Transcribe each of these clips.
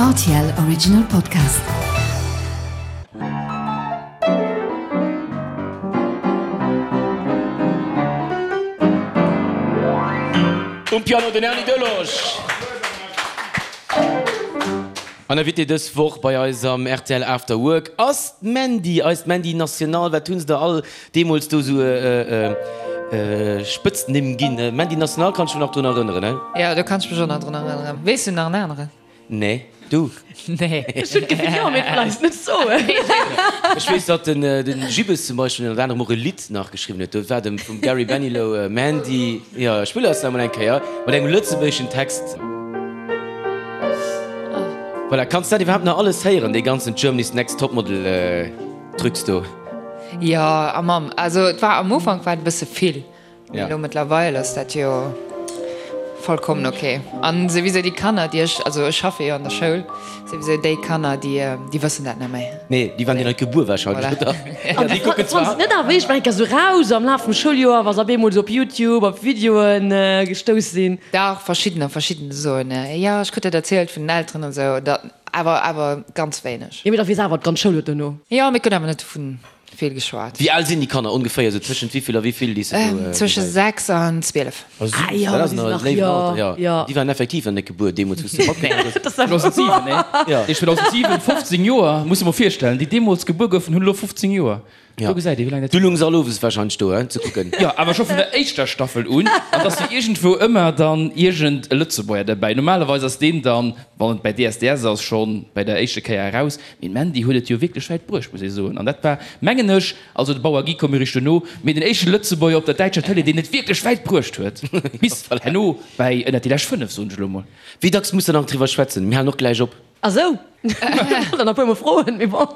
Rtl Original Podcast. Um Piano den Erny Delosch. An Invité dës Woch bei eis am rtl After Work ass d'Mandy, eist Mandy National. Wat hunn se der all deemools do sou Spëtznimm ginn? Mandy National kann ech mech nach drun erënneren, he? Jo, do kann ech mech och nach drun erënneren. Weess du nach en aneren? Nee, du? Nee. Ech hunn d'Gefill, jo, mee vläicht net soen. Ech weess, datt den Gibbes zum Beispill ënnert anerem och e Lidd nach geschriwwen huet. Do war dem vum Gary Benilow Mandy. Jo, ech spillen eis nach emol eng Kéier mat engem lëtzebuergeschen Text. Voilà, kanns dat iwwerhaapt nach alles héieren, dee ganzen Germany's Next Topmodel Trucs do? Jo, a Mamm, also et war am Ufank war et e bësse vill. Mee elo mëttlerweil ass dat jo vollkommen ok. An souwisou déi Kanner, déi ech, also ech schaffe jo an der Schoul, souwisou déi Kanner, déi, déi wëssen dat net méi. Nee, déi waren jo net gebuer wahrscheinlech, oder? Voilà. Déi kucken zwar. Net awer, ech war eng Kéier sou raus am Laf vum Schouljoer, wa se op eemol sou op Youtube op Videoen gestouss sinn. Dach, verschiddener, verschidden soen, jo, ech krut dat erzielt vun den Elteren an esou, dat, awer, awer ganz wéineg. Jo, mee da weess awer d'ganz Schoul et dono. Jo, mee et gëtt awer net dovun Vill geschwat. Wéi al sinn déi Kanner ongeféier? Sou tëschent wéivill a wéivill déi s de do Tësche gesäis? 6 an 12. Oh süß, Ah jo, dat ass nach e léiwen Alter, jo. Jo. Déi waren effektiv nach net gebuer deemools, wou s de matgemaach hues. 2007, nee? Jo. Déi 2007, 15 Joer, muss de mol virstellen, déi deemools gebuer goufen, hunn elo 15 Joer. Jo. Do gesäit ee wéi laang dat Du lungs all owes wahrscheinlech do, hein, ze kucken. Jo, awer scho vun der éischter Staffel un. An et ass jo iergendwou ëmmer dann iergend e Lëtzebuerger derbäi. Normalerweis ass deen dann, wann et bäi DSDS ass, schonn bäi der éischte Kéier eraus. Mee d'Mandy huet et jo wierklech wäit bruecht, muss ee soen. An dat war, mengen ech, also de Bauer Guy koum jo richteg dono, mee den éischte Lëtzebuerger op der däitscher Tëlee, deen et wierklech wäit bruecht huet, bis herno bäi ënnert déi lescht 5, soen ech elo mol. Wéi dacks muss der nach driwwer schwätzen? Mir halen och gläich op. Ah sou, ech wollt der nach e puer mol froen, mee bon.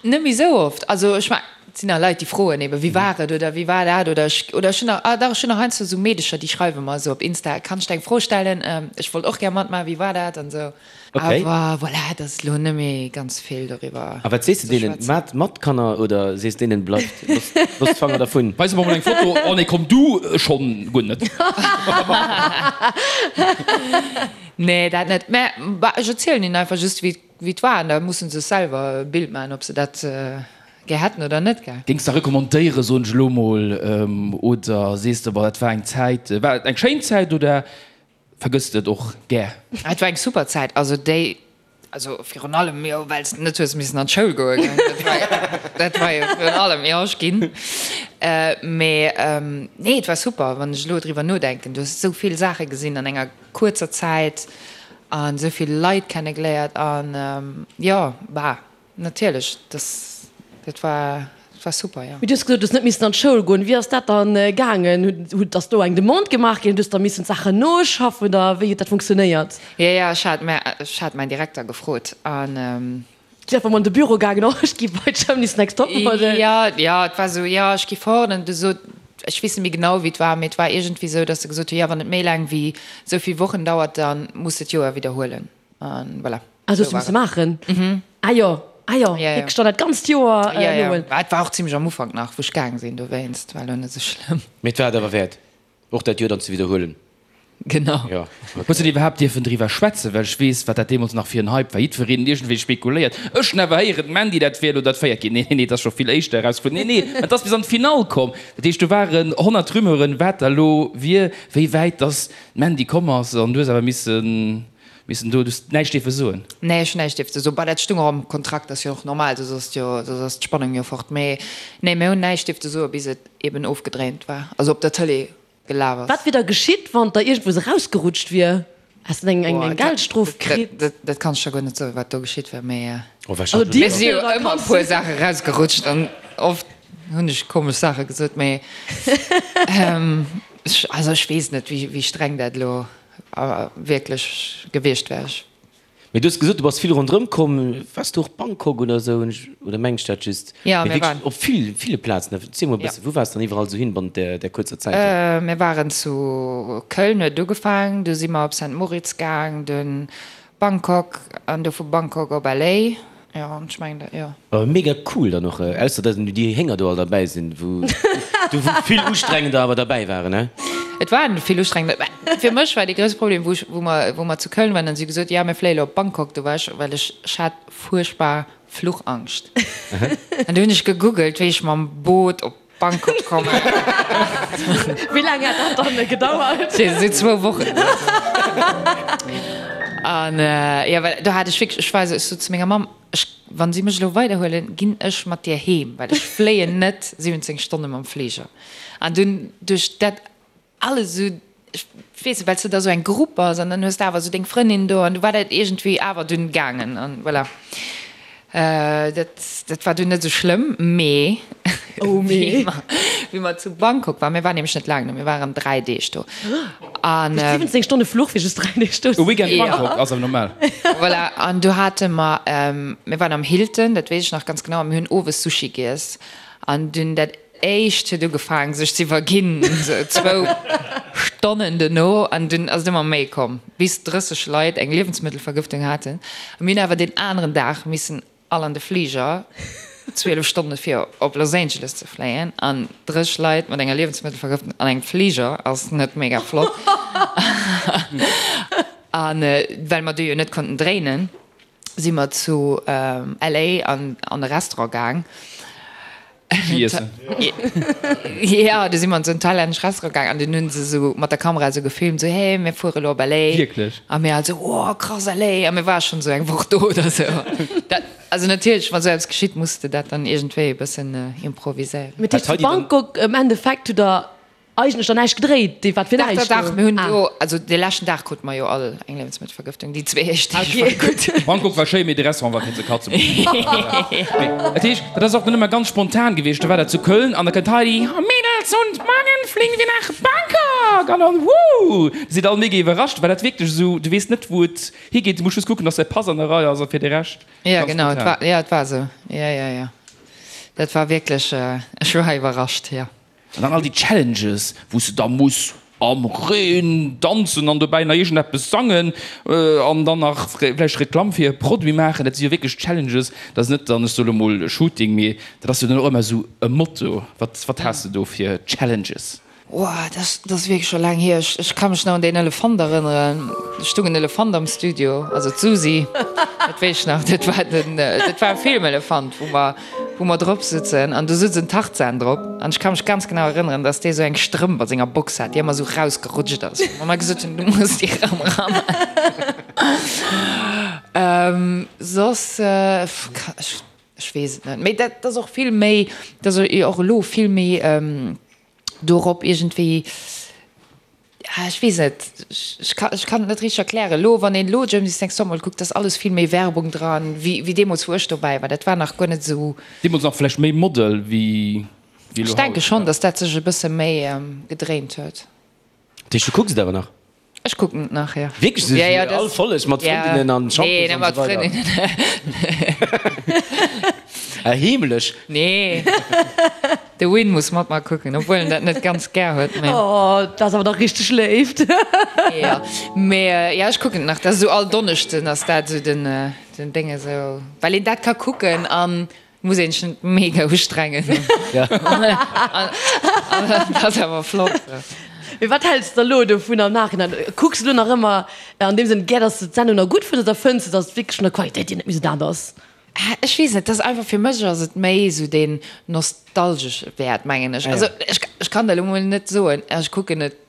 Net méi sou oft. Also ech mengen, et sinn nach Leit, déi froen eben, wéi war et oder wéi war dat oder ech, oder ech hunn nach, ah dach, ech hunn nach heiansdo sou Meedecher, déi schreiwe mer esou op Insta, kann ech der eng Fro stellen, ech wollt och gär matmaachen, wéi war dat an esou. Okay. Awer voilà, et ass elo net méi ganz vill doriwwer A wat sees de ze deenen? schwätzen. Maat mat, Kanner, oder sees deenen, bleift, loosst, loosst d'Fanger dervun? Weis mer mol eng Foto. Oh nee, komm du schonn guer net. Nee, dat net. Mä bah, ech erzielen hinnen einfach just, wéi wéi et war an da musse se sech selwer e Bild maachen, ob se dat gär hätten oder net, gell. Géings de recommandéieren, soen ech elo mol, oder sees de, boah, dat war eng Zäit, war et eng schéin Zäit oder Vergësst et och gär. Et war eng super Zäit, also déi, also virun allem jo well s de net hues missen an d'Schoul goe gell, dat war, dat war jo virun allem, jo ech ginn, mee nee et war super, wann ech elo driwwer nodenken, du hues esou vill Saache gesinn an enger kuerzer Zäit an esou vill Leit kenne geléiert an jo, bah. Natierlech, das, dat war, dat war super, jo. Mee du hues gesot, du hues net missen an d'Schoul goen. Wéi ass dat dann gaangen? Hutt, ass do eng Demande gemaach ginn? Hues da missen d'Saachen noschaffen oder wéi huet dat funktionéiert? Jo, jo, ech hat mä, ech hat mäin Direkter gefrot an. Du einfach mol an de Büro gaangen, oh ech gi bei Germany's Next Topmodel. Jo, jo, et war esou, jo, ech gi fort an du sot, ech weess net méi genau wéi et war, mee et war iergendwéi esou, datt se gesot hu, jo, wann et méi laang wéi esou vill Wochen dauert, da muss de d'Joer widderhuelen. An voilà. Ah, dat hues du misse maachen? Mhm. Ah jo, ah jo, wierklech dann dat ganzt Joer nohuelen. Ja, et war och zimlech am Ufank nach, wou ech gaang sinn, dowéinst war elo net esou schlëmm. Mee et war et awer wäert, och dat Joer dann ze widderhuelen. Genau. Jo, okay. Hues de iwwerhaapt dierfen driwwer schwätzen? Well ech weess, wat dat deemools nach fir en Hype war. Jiddwereen huet iergendwéi spekuléiert. Ech hunn awer héieren, d'Mandy, dat wär elo dat véiert ginn. Nee, nee, nee, et ass scho vill éischter erausfonnt. Nee, nee, et ass bis an d'Finall komm. Dat heescht, do waren 100 Rumeuren, wat da elo wier, wéi wäit dass d'Mandy komm ass. An du hues awer missen Missen do, du hues näischt dierfe soen? Nee, ech hunn näischt dierfte soen. Bah, dat stung och am Kontrakt, ass jo och normal, soss ass jo, soss ass d'Spannung jo fort. Mee nee, mir hunn näischt dierfte soen, bis et eben ofgedréint war, also op der Tëlee gelaf ass. Wat wier da geschitt, wann der iergendwou erausgerutscht wier? Häss de eng eng Geldstrof kritt? Dat, dat kann ech der guer net soen, wat do geschitt wär, mee Oh, wahrscheinlech. mir si jo ëmmer e puer Saache erausgerutscht an oft hunn ech komesch Saache gesot, mee ech, also ech weess net, wéi, wéi streng dat elo wierklech gewiescht wär ech. Mee du hues gesot, du bass vill ronderëm komm. Waars du och Bangkok oder esou? Oder mengen ech dat just? Jo, Mee mir waren. wierklech op vill, ville Plazen. Erziel mol e bëssen, wou waars du dann iwwerall esou hin bannent där, där kuerzer Zäit do? Mir waren zu Köln, huet et ugefaangen, du si mer op Saint Moritz gaang, dunn Bangkok an du vu Bangkok op LA. Jo, an ech mengen dat, jo. Awer mega cool dann och, ausser dass déi Hénger do all derbäi sinn, wou do wou vill ustrengender awer derbäi waren, ne? Et war vill ustrengend. Mä fir mech war dee grousse Problem, wou ech, wou mer, wou mer zu Köln waren, dann hu si gesot, jo mir fléie lo op Bangkok, do war ech, well ech, ech hat fuerchtbar Fluchangscht. An du hunn ech gegoogelt, wéi ech mam Boot op Bangkok kommen. Wéi laang hat dat dann gedauert? Sou zwou Wochen oder sou. An jo, well do hat ech wierklech, ech war esou, ech sot zu menger Mamm, ech, wann si mech elo weiderhuelen, ginn ech mat dir heem, well ech fléien net 17 Stonne mam Fliger. An dunn duerch dat alles esou, ech weess net, well s de da sou eng Grupp bass an dann hues de awer esou deng Frëndin do an du war dat iergendwéi awer dunn gaangen an voilà. Dat, dat war dunn net esou schlëmm, mee Oh mee. wéi mer, wéi mer zu Bangkok waren, mir waren nämlech net laang do, mir waren 3 Deeg do an. Duerch 17 Stonne Fluch fir just 3 Deeg do E ze Weekend sinn. Bangkok ass awer normal. Voilà, an du hate mer, mir waren am Hilton, dat weess ech nach ganz genau, a mir hunn owes Sushi giess an dunn dat éischt huet ugefaang sech ze iwwerginn, sou zwou Stonnen dono, an dunn ass et ëmmer méi komm, bis 30 Leit eng Liewensmëttelvergëftung haten. A mir hunn awer deen aneren Dag missen all an de Fliger, 12 Stonne fir op Los Angeles ze fléien, an 30 Leit mat enger Liewensmëttelvergëftung an engem Fliger ass net mega flott. A well mer do jo net konnten dréinen, si mer zu LA an an e Restaurant gaang. Sushi iessen. Jo, du si mer an esou en thailännesch Restaurant gaang an dunn hunn se esou mat der Kamera esou gefilmt, esou, hey, mir fuere elo op LA. Wierklech? A mir all esou, oh krass, LA! A mir ware schonn esou eng Woch do oder esou. Dat, also natierlech, wa sou eppes geschitt, muss de dat dann iergendwéi e bëssen improviséieren. Mee dat heescht, zu Bangkok am Endeffekt hutt der Eigentlech dann näischt gedréit, dee wat fir Dach, näischt dach, dach, do. mir hunn Ah. do, also dee leschten Dag krute mer jo all eng Liewensmëttelvergëftung, déi zwee éischt Deeg Okay. war gutt. Bangkok war schéi, mee de Restaurant war fir ze katzen. Mee dat heescht, dat ass och dann ëmmer ganz spontan gewiescht. Da war dat zu Köln an da kënnt Heidi, Oh Mädels und morgen fliegen wir nach Bangkok! An dann, Woo! Da sidd all mega iwwerrascht, well dat wierklech esou, du weess net wou et higeet, du muss just kucken, dass däi Pass an der Rei ass a fir de Rescht Ja, ganz genau, et spontan. war, ja, et war esou, ja, ja, ja, dat war wierklech, ech war iwwerrascht, jo. An dann all déi Challenges, wou s de da muss am Reen danzen an dobäi nach iergendeppes sangen an dann nach vläicht Reklamm fir e Produit maachen. Dat si jo wierklech Challenges. Dat ass net dann, ech soe lo mol Shooting, mee dat ass jo dann och ëmmer esou e Motto. Wat, wat has de do fir Challenges? Ohh, dat ass wierklech scho laang hier. Ech ka mech nach un deen Elefant erënneren. Do stung en Elefant am Studio, also d'Susi, dat weess ech nach. Dat war den, dat war e Filmelefant, wou mer wou mer drop sutzen an do sutz en Tarzan drop an ech ka mech ganz genau erënneren, dass dee sou eng Strëmp a senger Box hat, déi ëmmer sou rausgerutscht ass, wou mer gesot hunn, du muss déi erëm eran. Soss, ech weess et net, mee dat ass och vill méi, dat ass och elo vill méi dorop iergendwéi, ech weess net, ech kann, ech kann et net richteg erklären. Elo, wann een elo Germany's Next Topmodel kuckt, ass alles vill méi Werbung dran, wéi, wéi deemools, wou ech dobäi war. Dat war nach guer net esou. Deemools nach vläicht méi Model wéi, wéi elo Ech denke haut, schonn, ja. datt dat sech e bësse méi gedréint huet. Dat heescht, du kucks et awer nach? Ech kucken et nach, jo. Wierklech? Ja, ja, All Folleg mat Frëndinnen an Shampoos Nee, net an mat esou weider? Frëndinnen. Ah, heemlech? Nee. De Win muss mat mer kucken, obwuel en dat net ganz gär huet, mee. Oh, dat ass awer dach richteg Léift. Jo, mee jo, ech kucken et nach. Dat ass esou all Donneschden ass dat esou den, den Déng esou, well een dat ka kucken an muss een sech net mega ustrengen. An dat ass awer flott. Mee wat häls de elo dovun am Nachhinein? Kucks de elo nach ëmmer an deem Sënn gär, dass de d'Sendung nach gutt fënns oder fënns de, dass et wierklech vun der Qualitéit hier net méi esou dat ass? Ech weess net, dat ass einfach, fir mech ass et méi esou deen nostalgesche Wäert, mengen ech. Also ech, ech kann der elo mol net soen, ech kucken et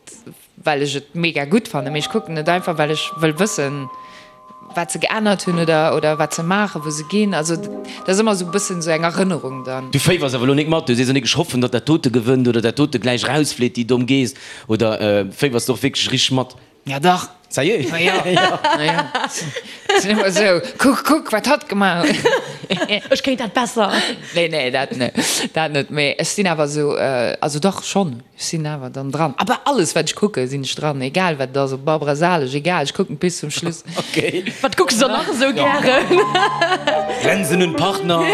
well ech et mega gutt fannen, mee ech kucken et einfach, well ech wëll wëssen, wat se geännert hunn oder, oder wat se maachen, wou se ginn. Also dat ass ëmmer esou e bëssen esou eng Erënnerung dann. Du féiwers awer elo nik mat, du sees och nik, ech hoffen, datt dat dote gewënnt oder dat dote gläich erausflitt, déi domm Geess, oder féiwers de och wierklech richteg mat? Ja dach. Sérieux? Ma jo, ma jo. Sinn ëmmer esou, kuck, kuck, wat hatt gemaach huet. Ech kéint dat besser. Nee, nee, dat net, dat net. Mee ech sinn awer esou, also dach schonn, ech sinn awer dann dran. A bei alles, wat ech kucken, sinn ech dran, egal wat et ass, ob Barbara Salesch, egal, ech kucken bis zum Schluss. Okay. Wat kucks de dann nach esou gären? Grenzen und Partner.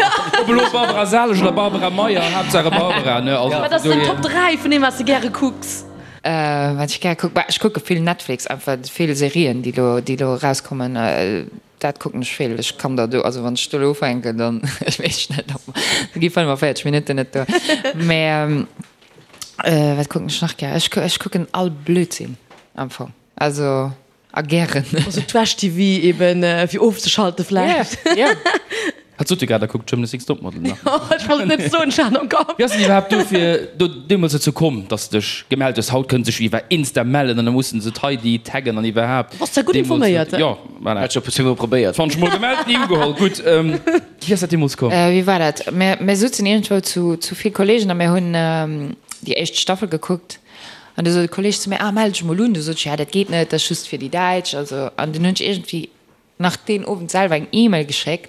Ob elo Barbara Salesch oder Barbara Meyer, Haaptsache Barbara, ne? Also Wat ass deng Top 3 vun deem, wat s de gäre kucks? Wat ech gär kucken? Bah, ech kucke vill Netflix, einfach vill Serien, déi elo, déi elo erauskommen. Dat kucken ech vill. Ech kann der do, also wann ech do elo ufänken, dann, ech weess net, ob, da gi 45 Minutten net duer. Mä. Wat kucken ech nach gär? Ech ech kucken all Blödsinn am Fong. Also a gären. Also Trash-TV eben fir ofzeschalten vläicht. Jo, jo. Hat sot jo grad, der kuckt Germany's Next Topmodel nach. Ech wollt et net soen, ech hat am Kapp. Wéi ass et iwwerhaapt dofir do deemools dozou komm, dass de dech gemellt hues? Haut kënne sech iwwer Insta mellen an da mussen se d'Heidi taggen an iwwerhaapt. Bass der gutt informéiert, he? Jo, voilà. Hat scho puer mol probéiert. 20 mol gemellt, ni ugeholl. Gutt, wéi ass dat deemools komm? Wéi war dat? Mir mir sutzen iergendwou zu zu vill Kollegen a mir hunn déi éischt Staffel gekuckt an du sot e Kolleg zu mir, ah mell dech mol un. Du sot ech, ja dat geet net, dat ass just fir déi Däitsch, also an dunn hunn ech iergendwéi nach deen Owend selwer eng Email geschéckt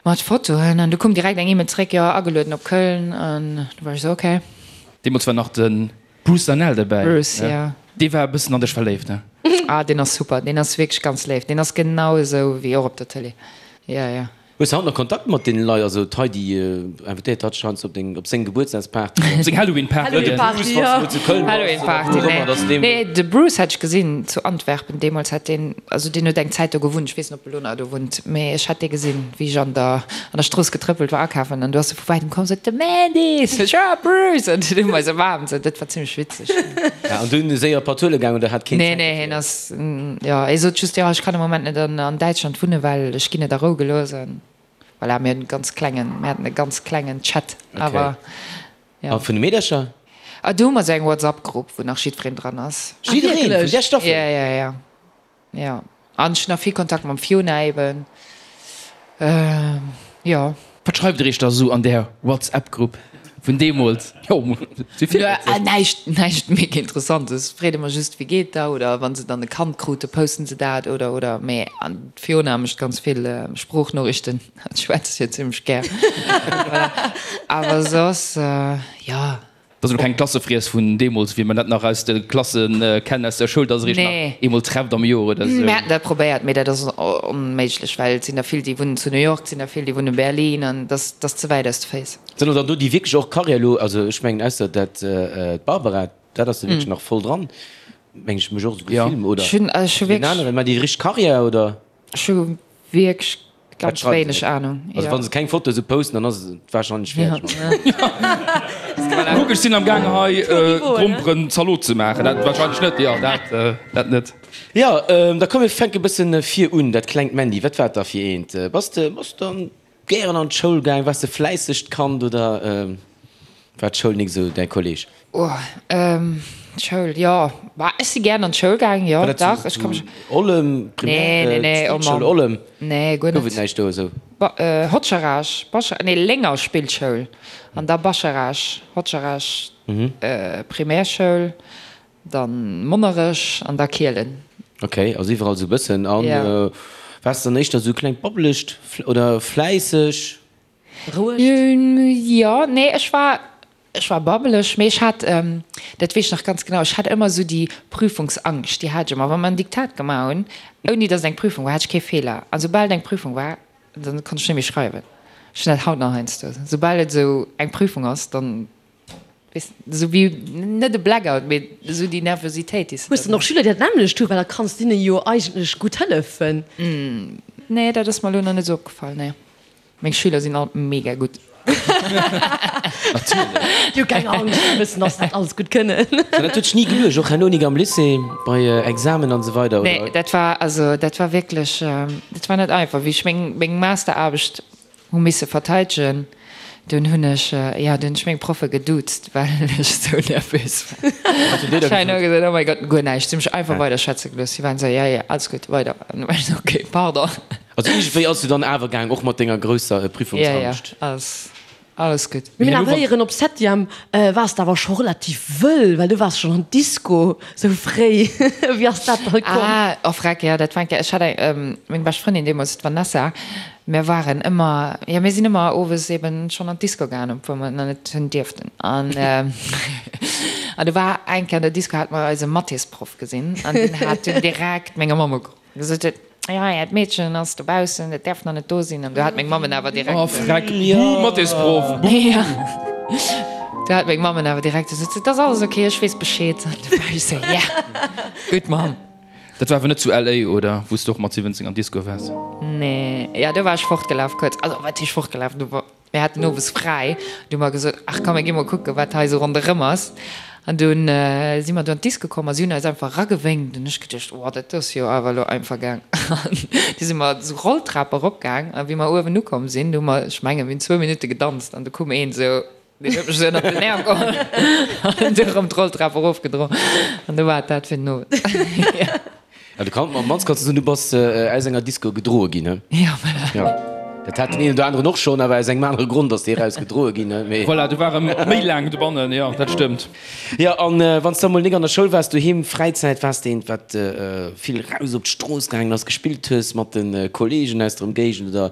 mat Fotoen an du koum direkt eng Email zeréck, jo agelueden op Köln an du war ech esou ok. Deemools war nach de Bruce Danell derbäi. Bruce, jo. Dee war e bëssen an dech verléift, ne? Ah deen ass super, deen ass wierklech ganz léif, deen ass genau esou wéi och op der Tëlee, jo jo. Hues de haut nach Kontakt mat deenen Leit? Also d'Heidi invitéiert hatt scheinst op deng, op seng Gebuertsdagsparty. Op seng Halloween-Party. Halloween-Party, jo. Halloween-Party, nee. Nee, de Bruce hat ech gesinn zu Antwerpen deemools, hat deen, also deen huet eng Zäit do gewunnt, ech weess net, ob e lo nach do wunnt, mee ech hat dee gesinn, wéi ech an der, an der Strooss getrëppelt war akafen an du ass e vu wäitem komm, sot, de Mandy! Sot ech, ah, Bruce! An dunn hu mer eis ëmaarmt, sou, dat war zimmlech witzeg. Ja, an dunn séier Patulle gaang oder hat keen Nee, Zäit nee, dofir? hien ass, jo, hie sot just, jo, ech kann am Moment net an, an Däitschland wunnen, well ech ginn net a Rou gelooss. An voilà, mir hunn e ganz klengen, mir haten e ganz klengen Chat, Okay. awer jo. A vun de Meedercher? Ah, do hu mer esou eng WhatsApp-Grupp, wou nach jiddwereen dran ass. Ah, Jiddereen? Vun wierklech? där Staffel? Ja, ja, ja. Jo, an ech hunn nach vill Kontakt mam Fiona eben, jo. Wat schreift der iech da sou an där WhatsApp-Grupp vun deemools? Jo, si vill witzeg. Näischt, näischt mega Interessantes. Freet ëmmer just, wéi geet der? Oder wa se dann e Kand krute, posten se dat oder, oder. Mee an d'Fiona mécht ganz vill Sproochnoriichten, hatt schwätzt jo zimmlech gär. Voilà. Awer soss, jo. Dat ass elo keng Klassefriess vun deemools, wéi mer dat nach aus de Klasse kennen, aus der Schoul, dass der iech nach eemol trefft am Joer oder esou. Mir haten dat probéiert, mee dat ass onméiglech, well et sinn der vill, déi wunnen zu New York, et sinn der vill, déi wunnen Berlin, an dat ass ze wäit aus de Féiss. Sinn och dann do déi wierklech och Karriär elo, also ech mengen ausser dat d'Barbara, dat ass jo wierklech nach voll dran, meng ech, mech och esou gefilm, oder? Ech hunn, ech hu Deen wierklech. aneren, mä déi richteg Karriär, oder? Ech hu wierklech Ganz wéineg Ahnung. Also wann se keng Foto esou posten, dann ass et wahrscheinlech fäerdeg. Kuck, ech sinn am gaange hei Gromperen Zalot ze maachen. Dat wahrscheinlech net, jo dat dat net. Jo, da komm mir fänke bëssen vir un. Dat klengt Mandy, wat war et da fir eent? Bass de bass de gären an d'Schoul gaang? Waars de fläissegt Kand oder war d'Schoul nik esou däi Kolleg? Oh, d'Schoul, jo. Bah, ech si gären an d'Schoul gaang, jo, War dat dach. zu, Ech ka mech. zu Ollem, Nee, Primär, nee, nee, oh Spillschoul Mann. Ollem? Nee, guer Gouf net. et näischt do esou? Ba, Hotscharage, Bacha, nee, Lénger Spillschoul an da Bascharage, Hotscharage, Primärschoul, dann Monnerech an da Kielen. Ok, also iwwerall esou e bëssen. An Ja. waars de dann éischter esou klengt babbelegt oder fläisseg? Rouegt? Jo, nee, ech war, Ech war babbeleg, mee ech hat, dat weess ech nach ganz genau, ech hat ëmmer esou déi Prüfungsangscht, déi hat ech ëmmer. Wa mer en Diktat gemaach hunn, ouni datt et eng Prüfung war, hat ech kee Feeler. A soubal et eng Prüfung war, dann konnt ech net méi schreiwen. Ech hunn dat haut nach heiansdo, soubal et esou eng Prüfung ass, dann, weess de, esou wéi, net e Blackout, mee esou déi Nervositéit, déi s de Hues de dann och Schüler, déi dat nämmlecht hunn? Well da kanns de hinne jo eigentlech gutt hëllefen. Nee, dat ass mer elo nach net esou opgefall, nee. Meng Schüler sinn all mega gutt. Déi hu keng Angscht, déi wëssen, dass se dat alles gutt kënnen. An dat huet dech ni geluecht, och herno nik am Lycée, bei Examen an esou weider, oder? Nee, dat war, also dat war wierklech, dat war net einfach. Wéi ech meng, meng Masteraarbecht hu misse verteidegen, dunn hunn ech, jo, dunn hunn ech meng Proffe geduuzt, well ech esou nervös war. Wat hunn déi da Ech hunn gesot? gesot, oh mäi Gott, guer näischt. Si hu mech einfach weider schwätze gelooss. Si waren esou, ja, ja, alles gutt, weider. An du war ech esou, okay, pardon. Also iergendwéi ass du dann awer gaang, och mat denger grousser Prüfungsangscht? Ja, ja, alles, alles gutt. Mir hunn awer héieren, op Septième waars de awer scho relativ wëll, well du waars schonn an d'Disco sou fréi. Wéi ass dat da komm? Ah, oh freck, jo, dat war eng Kéier, ech hat eng, meng bescht Frëndin deemools, d'Vanessa, mir waren ëmmer, jo, mir sinn ëmmer owes eben schonn an d'Disco gaangen, obwuel mer nach net hunn dierften. An, an du war eng Kéier an der Disco, hate mer eise Mathésproff gesinn an deen hat dunn direkt menger Mamm ugeruff. Gesot huet, jo, äert Meedchen ass dobaussen, et däerf nach net do sinn. An du hat meng Mamm en awer direkt. Oh freck, buh, Mathésproff, buh. Jo, du hat meng Mamm en awer direkt gesot, et ass alles ok, ech weess Bescheed. An du war ech sou, yeah, gutt Mamm. Dat war awer net zu LA, oder? Wou s de och mat 17 an d'Disco waars? Nee, jo, do war ech fortgelaf kuerz. Also, wat heescht fortgelaf? Du war. Mir haten owes fräi, du hu mer gesot, ach komm mir gi mol kucken, wat hei esou ronderëm ass. An dunn si mer do an d'Disco komm a si hunn eis einfach eragewénkt. An ech geduecht, oh dat ass jo awer elo einfach gaang. An du si mer esou Rolltrap eropgaang a wéi mer uewen ukomm sinn, du hu mer, ech mengen, mir hunn zwou Minutte gedanzt an du koum een esou, deen huet mech esou ënnert den Äerm geholl an du erëm d'Rolltrap erofgedroen an du war et dat fir den Owend. Ja, du kann, am mannst kanns du soen, du bass aus enger Disco gedroe ginn, he? Ja, voilà. Ja. Dat hat den een oder aneren och schonn, awer aus engem anere Grond ass dee raus gedroe ginn, he? Mee. Voilà, du war e méi laang dobannen, jo, dat stëmmt. Jo, an wann s de emol nik an der Schoul waars, doheem, Fräizäit, waars de eent, wat vill raus op d'Strooss gaangen ass, gespillt hues mat de Kolleegen aus der Ëmgéigend oder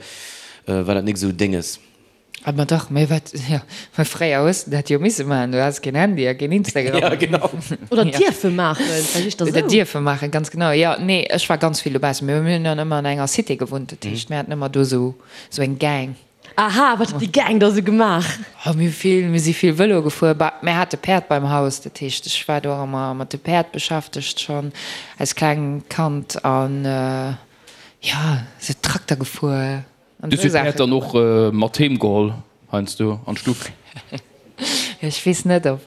war dat nik esou Dénges? Ah ma dach, mä wat, jo, mä fréier hues de dat jo misse maachen, du has keen Handy a keen Instagram. Ja, genau. Oder dierfe maachen, vläicht éischter Oder esou. dierfe maachen, ganz genau, jo. Nee, ech war ganz vill dobaussen. Mir hunn dann ëmmer an enger Cité gewunnt, dat heescht, mir haten ëmmer do esou, esou eng Gang. Aha, wat huet déi Gang da sou gemaach? Oh, mir hu vill, mir si vill Vëlo gefuer. Bah, mir hate Päerd beim Haus, dat heescht, ech war do och ëmmer mat de Päerd beschäftegt schonn als klengt Kand an, jo, sou Trakter gefuer. Du hues d'Päerd dann och mat heem geholl heiansdo an d'Stuff? Ech weess net op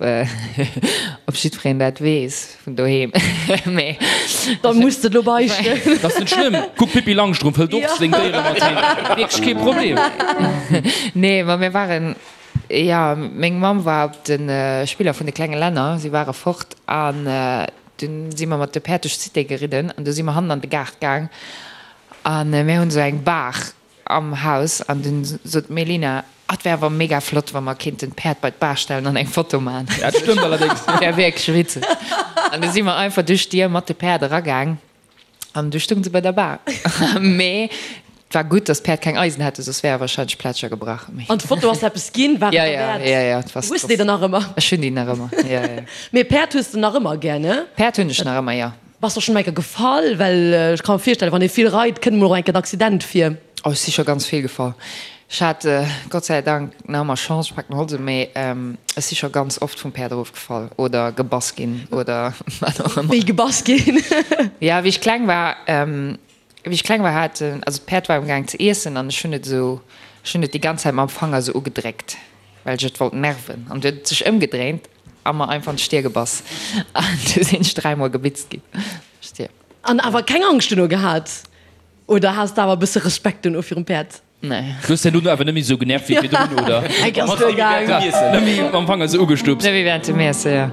op jiddwereen dat weess vun doheem, mee. Da muss de lo beichten. Dat ass net schlëmm. Kuck, d'Pippi Langstrumpf hëlt och seng Déiere mat heem. Wierklech kee Problem. Nee, ma mir waren, jo, meng Mamm war op de Spiller vun de klenge Länner, si ware fort an dunn si mer mat de Päerd duerch d'Cité geridden an du si mer hannen an de Gaart gaang An mir hunn esou eng Baach am Haus an dunn sot d'Melina, Ah, et wär awer mega flott, wa mer kéinten d'Päerd bei d'Baach stellen an eng Foto man. Dat stëmmt allerdéngs. Dat wär wierklech witzeg. An du si mer einfach duerch d'Dier mat de Päerd eragaang an du stounge se bei der Baach. Mee et war gutt, dass d'Päerd keng Eisen hate, soss wär e wahrscheinlech Plätscher gebrach. Mee. An d'Foto ass eppes ginn? War et Ja, ja, derwäert? ja, ja, et war. Hues de déi dann nach ëmmer? Ech hunn déi nach ëmmer, ja, ja. Mee Päerd hues de nach ëmmer gär, ne? Päerd hunn ech nach ëmmer, jo. Bass der schon eng Kéier gefall? Well ech ka mer virstellen, wann ee vill reit, kënnt mol och eng Kéier en Accident vir. Oh, ech si scho ganz vill gefall. Ech hat Gott sei Dank nach ëmmer Chance, ech paken Holz un, mee ech si scho ganz oft vum Päerd erofgefall oder gebass ginn oder wat och ëmmer. Wéi gebass ginn? Jo, wéi ech kleng war, wéi ech kleng war hat, also d'Päerd war amgaang ze iessen an ech hunn et esou, ech hunn et déi ganz Zäit mam Fanger esou ugedréckt, well ech et wollt nerven an du huet et sech ëmgedréint A mer einfach an d'Stier gebass. An du sinn ech dräimol gebitzt ginn. Stier. An awer keng Angscht duerno gehat? Oder has de awer e bësse Respekt duerno virum Päerd? Nee. Du hues herno awer net méi esou genervt wéi virdrun, oder? Eng ass duer gaang. Net méi mam Fanger esou ugestupst. Net méi während dem Iesse, jo.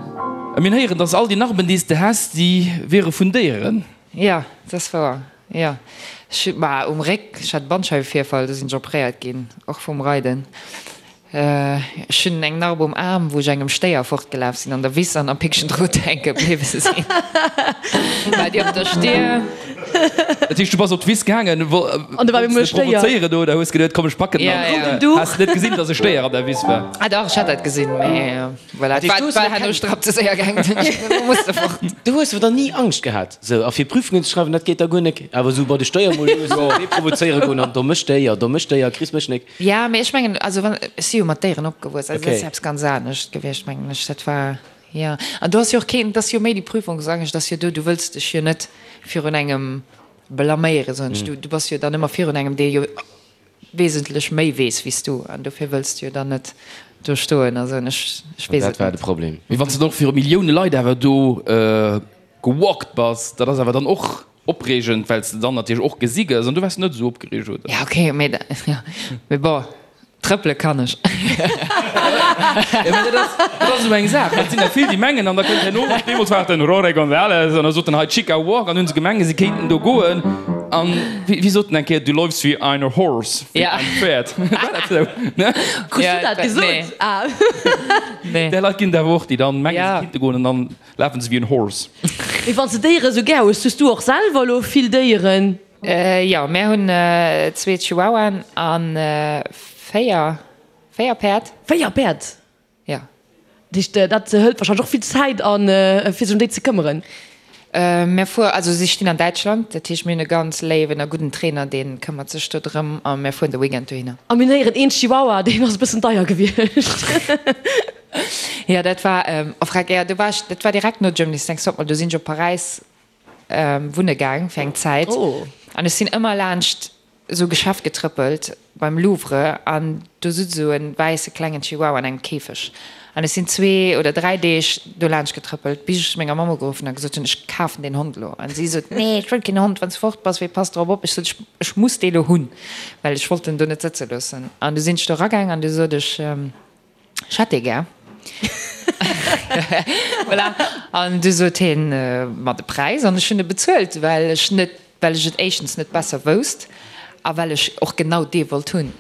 A mir héieren, dass all déi Narben, déi s de has, déi wiere vun Déieren. Jo, dat ass wouer, jo. Ech, ma um Réck, ech hat e Bandscheiwevirfall, do sinn ech operéiert ginn, och vum Reiden. Ech hunn eng Narb um Aarm, wou ech engem Stéier fortgelaf sinn an der Wiss an am Pickchen Drot hänke bliwwe sinn. War déi op der Stier. Dat heescht, du bass op d'Wiss gaangen, An do war wollts de provozéieren oder hues geduet, komm ech packen en an has net gesinn, dass e Stéier an der Wiss war? Ah dach, ech hat dat gesinn, mee voilà, et war, war herno strapp ze séier gaangen, dunn musste fort. Du hues awer dann ni Angscht gehat, sou a fir Prüfungen ze schreiwen, dat geet da guer nek, awer sou bei de Stéier mol lues dee provozéiere goen an domme Stéier, domme Stéier, kriss mech nek. Ja, mee ech mengen, also wann, ech si jo mat Déieren opgewuess, also dat ass eppes ganz anescht gewiescht, mengen ech. Dat war, jo. An do ass jo och keen, et ass jo méi déi Prüfungsangscht ass jo do, du wëlls dech jo net virun engem blaméieren, soen ech. Du, du bass jo dann ëmmer virun engem, dee jo wesentlech méi weess wéi s du, an dofir wëlls du jo dann net do stoen a soen, ech, ech weess Dat et war de net. Problem. Mee wann s de dann och viru Millioune Leit awer do gewalkt bass, dat ass awer dann och Opreegend, well s de dann natierlech och gesi gëss an du waars net esou opgereegt, oder? Ja, okay, mee da, ja, mee bon, trëppele kann ech. Ja, mee dat ass, dat ass esou eng Saach, well et sinn der vill, déi mengen, an da kënnt herno, deemools war et den Rore González, an da sot en hei Chica Walk, an hunn se gemengt, si kéinten do goen, an wéi, wéi sot en eng Kéier, du läufst wie eine Horse, wéi Ja. ein Pferd. War dat esou, ne? Krus Ja, du dat gesot? nee. Ah. Nee. Där Leit ginn et awer och, déi dann mengen, Ja. se kéinte goen, an dann Lafen se wéi en Horse. Mee wann s de Déiere sou gär hues, hues du och selwer elo vill Déieren? Jo, mär hunn zwee Chihuahuaen a 4, 4 Päerd. 4 Päerd? Jo. Dat heescht, dat hëlt warscheinlech och vill Zäit an, fir sech ëm déi ze këmmeren? Mär fuer, also si stinn an Däitschland, dat heescht mir hunn e ganz léiwen a gudden Trainer, dee këmmert sech do drëm a mär fueren de Weekend dohinner. A mir héieren, een Chihuahua, deen ass e bëssen deier gewiescht. Jo, dat war, oh freck, jo, do war ech, dat war direkt no Germany's Next Topmodel, do sinn ech op Paräis wunne gaang fir eng Zäit an ech sinn ëmmer laanscht esou e Geschäft getrëppelt beim Louvre an do sutz esou e wäisse klengen Chihuahua an engem Käfeg. An ech sinn zwee oder dräi Deeg do laanscht getrëppelt, bis ech menger Mamm ugeruffen a gesot hunn, ech kafen deen Hond elo. An si sot, nee, ech wëll keen Hond, wann s de fort bass, wee passt drop op? Ech sot, ech muss dee lo hunn, well ech wollt en do net sëtze loossen. An du sinn ech do eragaang an du sot ech, ech hätt dee gär. Voilà. An du sot hien mer de Präis an ech hunn e bezuelt, well ech net, well ech et éischtens net besser wousst a well ech och genau dee wollt hunn.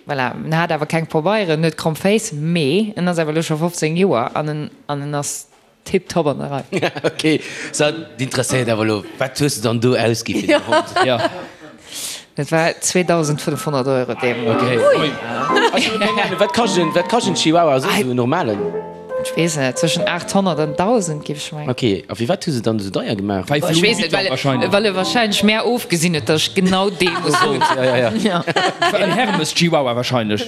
Voilà, en hat awer keng Pabeieren, en huet kromm Féiss, mee en ass awer elo scho 15 Joer an en an en ass tiptop an der Rei. Ok, so d'interesséiert awer elo, wat hues de dann do ausgi fir den Hond? Jo. Dat war 2.500 Euro deemools. Ok. Ui. Ech hunn keng Ahnung, wat kascht en, wat kascht en Chihuahua soss, esou en normalen? Ech weess net, zwëschen 800 an 1.000 géif ech mengen. Ok, a firwat hu se dann esou deier gemaach? Bei Ech Louis weess net, Vuitton well, wahrscheinlech. well e wahrscheinlech mär ofgesinn huet, datt ech genau dee muss hunn. Ja, ja, ja. Ja. En Hermes Chihuahua wahrscheinlech.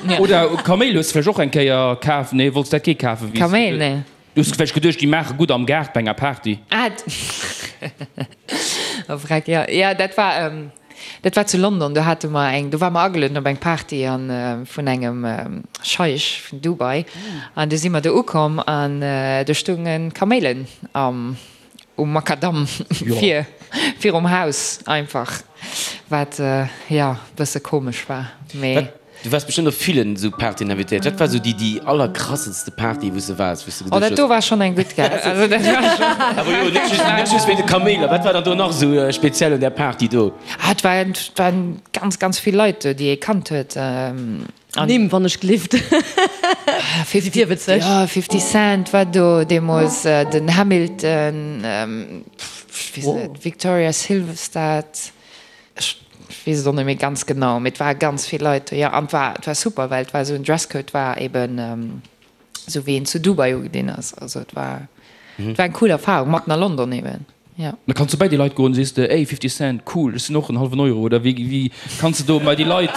Ja. Oder Kaméil hues de vläicht och eng Kéier kaf? Nee, wollts dat kee kafen? Wéi s Kaméil, nee. Du hues vläicht geduecht, déi maache gutt am Gaart bei enger Party. Ah, oh vreck, jo, jo, dat war, Dat war zu London, do hate mer eng, do ware mer agelueden op eng Party an vun engem Scheich vun Dubai an du si mer do ukomm an do stounge Kaméilen am um Makadamm vir virum Haus einfach, wat jo bësse komesch war, mee. Du waars bestëmmt op villen esou Partyen invitéiert. Wat war esou déi déi allerkrassenste Party wou s de waars, wou s de Oh, geduecht dat hues. do war schonn eng gutt, gell? Also dat war schonn. Awer jo, net just, net just wéint de Kaméiler. Wat war dann do nach esou speziell un där Party do? Ah, et waren, et waren ganz, ganz vill Leit do, déi ee kannt huet. An. Nimm, wann ech gelift. Si virwëtzeg. Jo, 50 Cent war do deemools, den Hamilton, ech weess net, Victoria Silvstedt. Ech weess et och net méi ganz genau, mee et ware ganz vill Leit do, jo. An et war, et war super, well et war esou en Dresscode war eben esou wéi een zu Dubai ugedinn ass. Also et war, et war eng cool Erfahrung, matten a London eben, jo. Da kanns du bei déi Leit goen, sees de, ey 50 Cent, cool, ech sinn och en hallwen Euro, oder wéi, wéi kanns de do bei déi Leit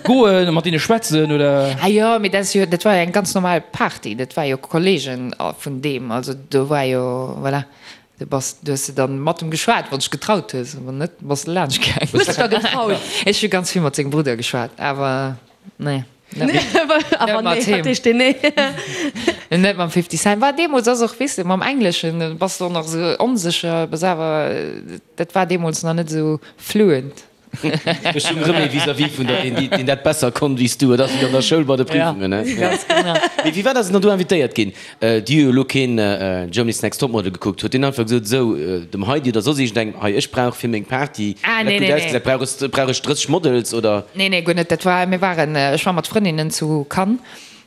goen a mat deene schwätzen, oder? Ah jo, mee dat ass jo, dat war jo eng ganz normal Party, dat war jo Kollegen vun deem, also do war jo, voilà. Du bass, du hues de dann mat em geschwat, wann s dech getraut hues, wann net, bass de laanscht gaang. Hues dech da getraut? Ech hu ganz vill mat sengem Brudder geschwat, awer nee, net Awer mat nee, him. wat heescht deen nee? Net mam 50 Cent. War deemools ass och, weess de, mam Engleschen bass de och nach esou onsécher, bass awer, dat war deemools nach net esou fluent. Ech hunn erëm ee vis-à-vis vun der, deen, deen dat besser konnt wéi s du. Et ass wéi an der Schoul bei de Prüfungen, ne? Ja, ganz genau. Mee firwat ass en dann do invitéiert ginn? Déi hu jo elo keen Germany's Next Topmodel gekuckt. Huet deen einfach gesot, esou, dem Heidi oder soss iergendengem, hei, ech brauch fir meng Party, Ah, dat nee, gutt nee, nee. ausgesäit, brauch ech, brauch ech 30 Models, oder? Nee, nee, guer net. Dat war, mir waren, ech war mat Frëndinnen zu Cannes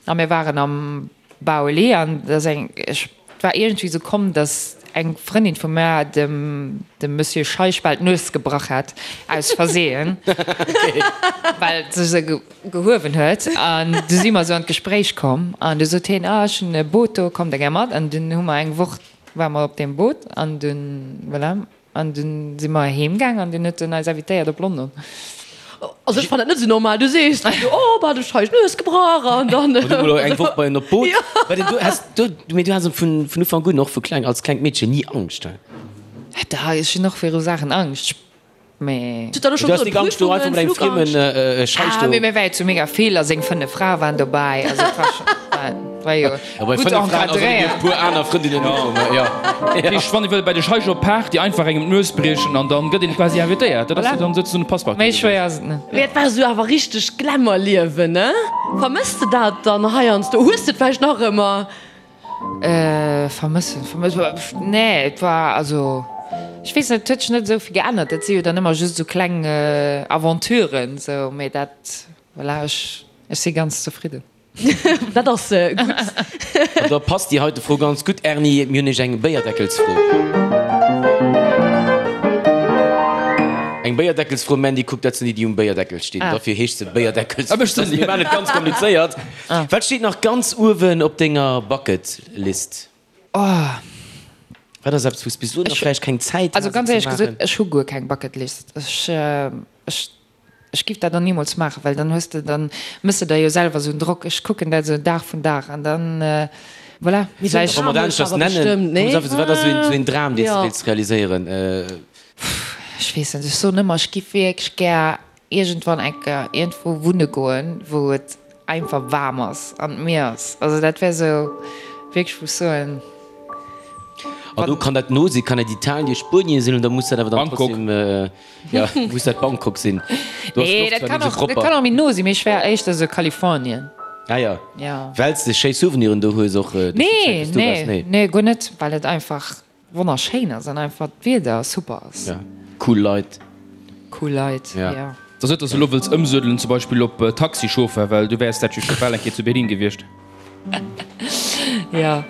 a mir waren am Baoli an et ass eng, ech, et war iergendwéi esou komm, datt eng Frëndin vu mär dem, dem Monsieur Scheich bal d'Nues gebrach hat, aus Versehen, well se se gehuewen huet. An du si mer esou an d'Gespréich komm an du sot hien, ah, ech hunn e Boot do, kommt der gär mat? An dunn hu mer eng Woch, ware mer op deem Boot an dunn, voilà. An dunn si mer heem gaang an dunn huet en eis invitéiert op London. Also ech fannen dat net esou normal. Du sees dann esou, oh bah, de Scheich Nues gebrach an dann. An du mol eng Woch bei en op d'Boot. Well du has du, mee du has vun vun Ufank un, och vu kleng, als klengt Meedchen ni Angscht, he? Da, ech hunn och viru Saachen Angscht, mee. Du hues Du has nik Angscht do einfach mat engem friemen Scheich Ah, do. mee mir war jo zu mega vill a seng 5 Frae waren dobäi, also et war scho, war jo gutt encadréiert. Puer aner Frëndinnen och, jo. Dat heescht, wann ee wëll bei de Scheich op Party einfach engem d'Nues briechen an dann gëtt een quasi invitéiert. Dat ass jo dann souzesoen e Passepartout. Méi schwéier ass et net. Mee et war esou awer richteg Glamour-Liewen, ne? Vermëss de dat dann heiansdo? Hues de et vläicht nach ëmmer? Vermëssen, vermëssen, nee, et war, also ech weess net, et huet sech net esou vill geännert. Dat si jo dann ëmmer just esou kleng Aventuren, esou, mee dat, voilà, ech, ech si ganz zefridden. Dat ass gutt. An da passt déi heite Fro ganz gutt, Erni, mir hunn iech eng Béierdeckelsfro. Eng Béierdeckelsfro, Mandy, kuck, dat sinn déi, déi um Béierdeckel stinn. Dofir heescht se Béierdeckelsfro. Mir maachen et ganz komplizéiert. Wat steet nach ganz uewen op denger Bucketlist? Wat ass eppes, wou s bis elo nach vläicht keng Zäit Also has, et ganz ze éierlech gesot, maachen? ech hu guer keng Bucketlist. Ech, ech. Ech giff dat och nimools maachen, well dann hues de, dann mëss de der jo selwer esou en Drock. Ech kucken dat esou Dag vun Dag an dann, voilà, vläicht. Wa mer dat aneschters nennen, wat ass esou een Dram, deen s de wéilts realiséieren? Ech weess net, ech soen ëmmer, ech giff wierklech gär iergendwann eng Kéier iergendwou wunne goen, wou et. einfach waarm ass an d'Mier ass. Also dat wär sou wierklech, wou ech soen. An do kann dat no sinn, kann dat Italien, Spuenien sinn, oder muss dat awer dann Bangkok. trotzdem, ja, muss dat Bangkok sinn? Do ass Nee, d'Loft dat zwar kann net esou och, dat propper. kann och méi no sinn, mee ech wär éischter sou Kalifornien. Ah ja. Ja. Well s de schéi Souveniren do hues och duerch déi Zäit, Nee, wou s do waars? nee, Nee. nee, guer net, well et einfach wonnerschéin ass an einfach d'Wieder super ass. Ja, cool Leit. Cool Leit, Ja. ja. Et ass net, dass de elo wëlls ëmsuedelen, zum Beispill op Taxichauffeur, well du wäers dat jo scho bal eng Kéier zu Berlin gewiescht. Jo,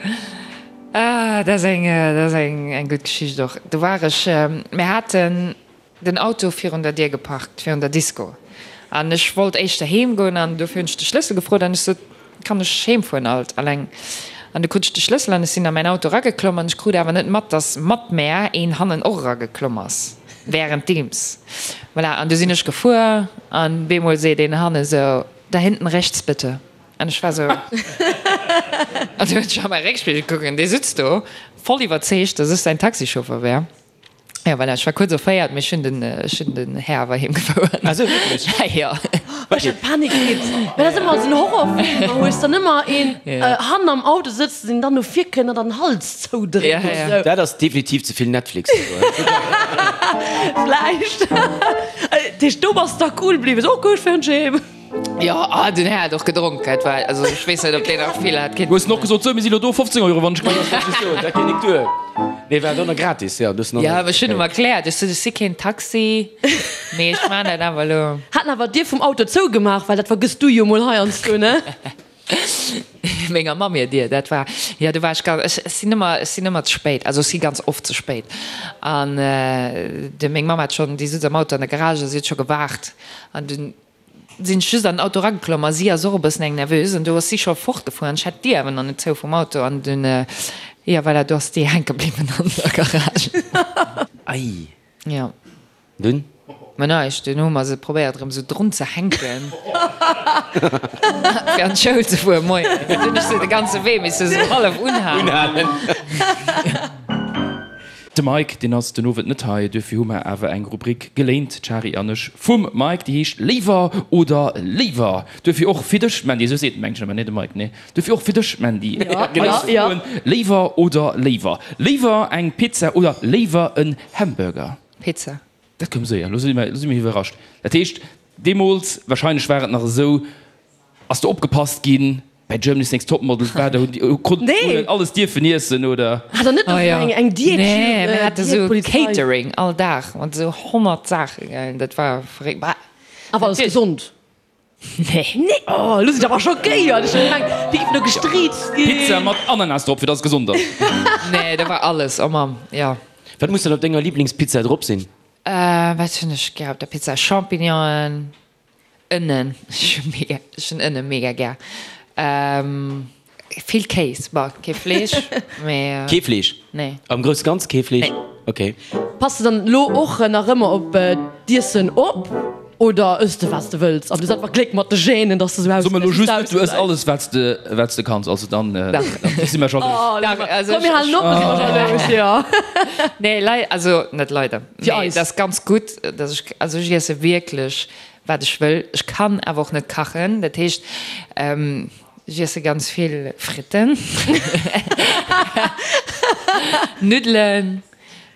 ah, dat ass eng, dat ass eng, eng gutt Geschicht och. Do war ech, mir haten den Auto virun der Dier geparkt, virun der Disco, an ech wollt éischter heem goen an dofir hunn ech de Schlëssel gefrot an ech sot, Kann ech heem fueren alt alleng? An du krut ech de Schlëssel an ech sinn a mäin Auto erageklomm an ech krut awer net mat, dass mat mär een hannen och erageklomm ass währenddeems. Voilà, an du sinn ech gefuer an bemol seet een hanne sou, Da hinten rechts bitte. An ech war sou, an du hunn ech a mäi Réckspigel gekuckt an dee sutz do voll iwwerzeegt, dass ech säin Taxichauffer wär. Ja, voilà, ech war kuerz erféiert, mee ech hunn den, ech hunn den Här awer heem gefouert. Ah sou, wierklech? Jo. Ech hätt Panik kritt, well dat ass ëmmer esou en Horrorfilm, wou hues dann ëmmer een hannen am Auto sëtzt, deen dann no vir kënnt an dann den Hals zoudréckt Ja, ja. esou. Dat ass definitiv ze vill Netflix. Vläicht. Dat heescht, do bass de da cool bliwwen, sou, ok, ech fueren heem. Jo, ah, den Här hat och gedronk, et war, also ech weess net, ob deen nach vill hat Du hues en och gesot, sou, mir si lo do, 15 Euro, wann ech Dat wollt ech soen, dat geet nik duer. Nee, war dann gratis, jo, du hues en Jo, ech hunn em erkläert, ech sot, ech si keen Taxi, mee ech maan dat awer elo. Hat en awer d'Dier vum Auto zougemaach, well dat vergëss du jo mol heiansdo, ne? Menger Mamm hir Dier, dat war, jo, do war ech ganz, ech sinn ëmmer, ech sinn ëmmer ze spéit, also ech si ganz oft ze spéit. An de, meng Mamm hat schonn, déi sutz am Auto an der Garage a si huet scho gewaart an dunn sinn ech just an den Auto erageklomm a si ass och e bëssen eng Nervös an do ass si scho fortgefuer an ech hat d'Dier awer nach net zou vum Auto an dunn, jo voilà, do ass déi hänke bliwwen an der Garage. Ei. Jo. Dunn? Mä näischt, dunn hu mer se probéiert erëm sou drun ze hänken fir an d'Schoul ze fueren moien. Dunn hunn ech se de ganze Wee misse sou hallef unhalen. De Mike, deen ass den Owend net hei, duerfir hu mer awer eng Rubrik geléint, d'Shari an ech, vum Mike, déi heescht Léiwer oder léiwer. Duerfir och fir dech, Mandy, esou seet en mengen ech ëmmer, nee, de Mike, nee, duerfir och fir dech, Mandy, eis Froen, Léiwer oder léiwer? Léiwer eng Pizza oder léiwer en Hamburger? Pizza. Dat koum séier, lo si mer iwwerrascht. Dat heescht, deemools, wahrscheinlech war et nach esou, Ass do opgepasst ginn bäi Germany's Next Topmodel? War do, konnt een alles dierfen iessen oder? Hat der net och eng eng Diät? Nee, mir hate sou Catering all Dag mat sou 100 Saachen, dat war verréckt. Awer alles gesond? Nee. Nee, oh elo sinn ech awer schockéiert, ech hunn gemengt déi géifen do gestriizt ginn. Pizza mat Ananas drop fir dass et gesond ass. Nee, do war alles, oh Mamm, jo. Wat muss dann op denger Liblingspizza drop sinn? Wat hunn ech gär op der Pizza? Champignonen. Ënnen, ech hu mega, ech hunn Ënne mega gär. Vill Kéis, bon, kee Fleesch, mee. Kee Fleesch? Nee. Am grousse Ganze kee Fleesch? Nee. Ok. Pass de dann elo och nach ëmmer op d'Iessen op oder ëss de wat s de wëlls an du hues einfach Gléck mat de Genen, dass de sou So mer elo just net, du ëss alles wat s de, wat s de kanns, also dann, dann si mer jalous. Dach, also Komm mir halen op, da si mer jalous, jo. Nee, lei, also net leider, Fir mee eis. et ass ganz gutt, dass ech, also ech iesse wierklech wat ech wëll. Ech kann awer och net kachen, dat heescht ech iesse ganz vill Fritten, Nuddelen